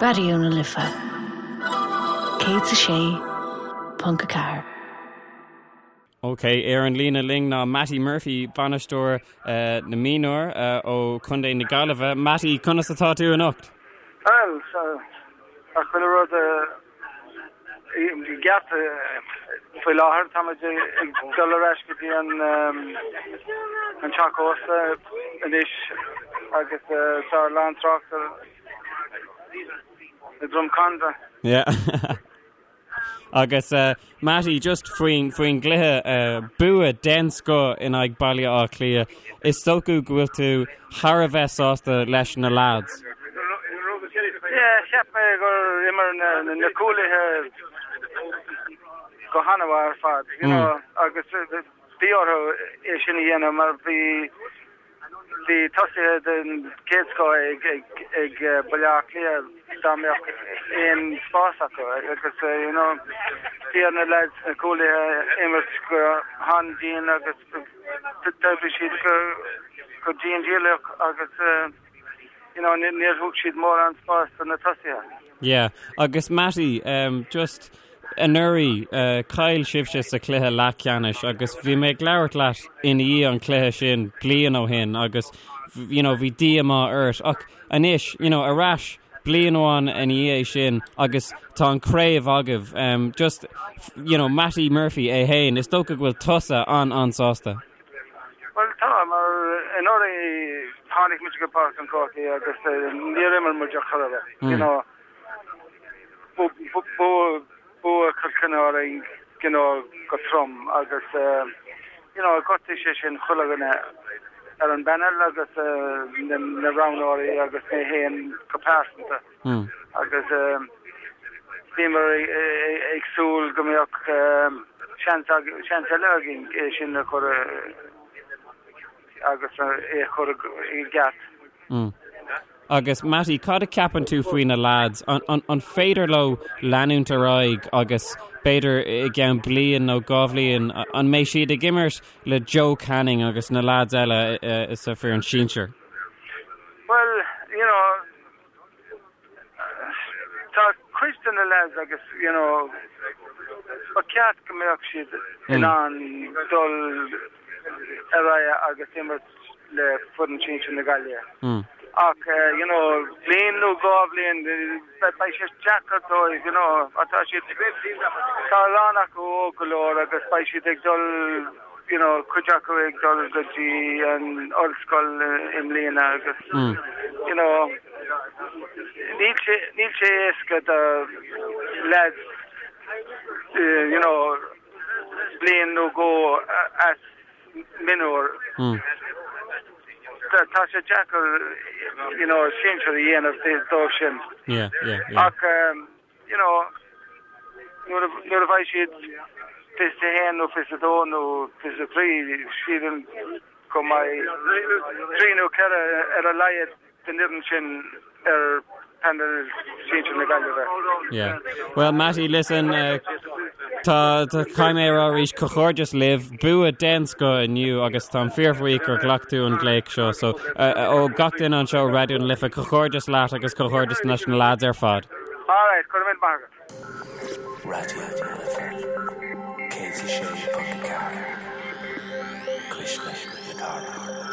Raidió na Life 106.4. Ok, ar an líne linn ná Mattie Murphy, bainisteoir na mionúr ó Chontae na Gaillimhe. Mattie, conas atá tú anocht? Bhuel, tá chuile rud i gceart faoi láthair. Tá muid ag dul ar ais go dtí an teach ósta anois agus tá a lán trácht i Drumcondra. Yeah. Agus Mattie, just faoin faoin gcluiche, bua den scoth in aghaidh Baile Átha Cliath, is dócha go bhfuil tú thar a bheith sásta leis na lads. Yeah, cheap mé gur imir na cúlaithe go han-mhaith ar fad, you know, agus bhí orthu é sin a dhéanamh mar bhí Bhí tosaithe den chéad scoth ag Baile Átha Cliath dá mbeadh aon spás acu agus you know bhí ar na lads, na cúlaithe, imirt go han-dian agus d'oibrigh siad go dian dícheallach agus you know níor thug siad mórán spás do na tosaithe. Yeah, agus Mattie, just anuraidh, chaill sibhse sa chluiche leathcheannais agus bhí mé ag labhairt leat i ndiaidh an chluiche sin bliain ó shin agus you know, bhí díomá ort ach anois, you know, ar ais bliain amháin ina dhiaidh sin agus tá an chraobh agaibh. Um, just, you know, Mattie Murphy é féin, is dócha go bhfuil tusa an-an-sásta. Bhuel tá, mar anuraidh tháinig muid go Páirc an Chrócaigh agus níor imir muid ar chor ar bith, you know. Buadh Cill Chainnigh orainn, you know, go trom agus you know ghortaigh sé sin chuile dhuine ar an bpanel agus na roghnóirí agus mé féin go pearsanta agus bhíomar ag súil go mbeadh seans seans eile againn é sin a chur agus é a chur i gceart. Agus Mattie, cad a ceapann tú faoi na lads? An féidir leo leanúint ar aghaidh agus b'fhéidir i gceann bliain nó 2 bhliain, an mbeidh siad ag imirt le Joe Canning agus na lads eile sa foireann sinsir? Bhuel, you know, tá cuid de na lads agus, you know, ba cheart go mbeadh siad in ann dul ar aghaidh agus imirt le foireann sinsir na Gaillimhe. Ach, you know, bliain nó 2 bhliain, beidh sé deacair dóibh, you know, tá siad, tá a lán acu óg go leor agus beidh siad ag dul, you know, cuid acu ag dul go dtí an ollscoil i mbliana agus, you know, níl sé, níl sé éasca do lads, you know, bliain nó dhó as mionúr. Tá sé deacair, you know, sinsir a dhéanamh dóibh sin. Yeah, yeah, yeah. Ach, you know, nuair a, nuair a bheidh siad 21 nó 22 nó 23, sílim go mbeidh trí nó ceithre ar a laghad den fhoireann sin ar phainéal sinsir na Gaillimhe. Yeah. Well, Mattie, listen, uh, tá tá caithfidh mé a rá arís comhghairdeas libh, bua den scoth inniu agus táim fíorbhuíoch gur ghlac tú an glaoch seo. So, uh, uh, ó gach duine anseo Raidió na Life, comhghairdeas leat agus comhghairdeas leis na lads ar fad. All right, go raibh míle maith agat. Raidió na Life 106.4 Cuisle na Cathrach.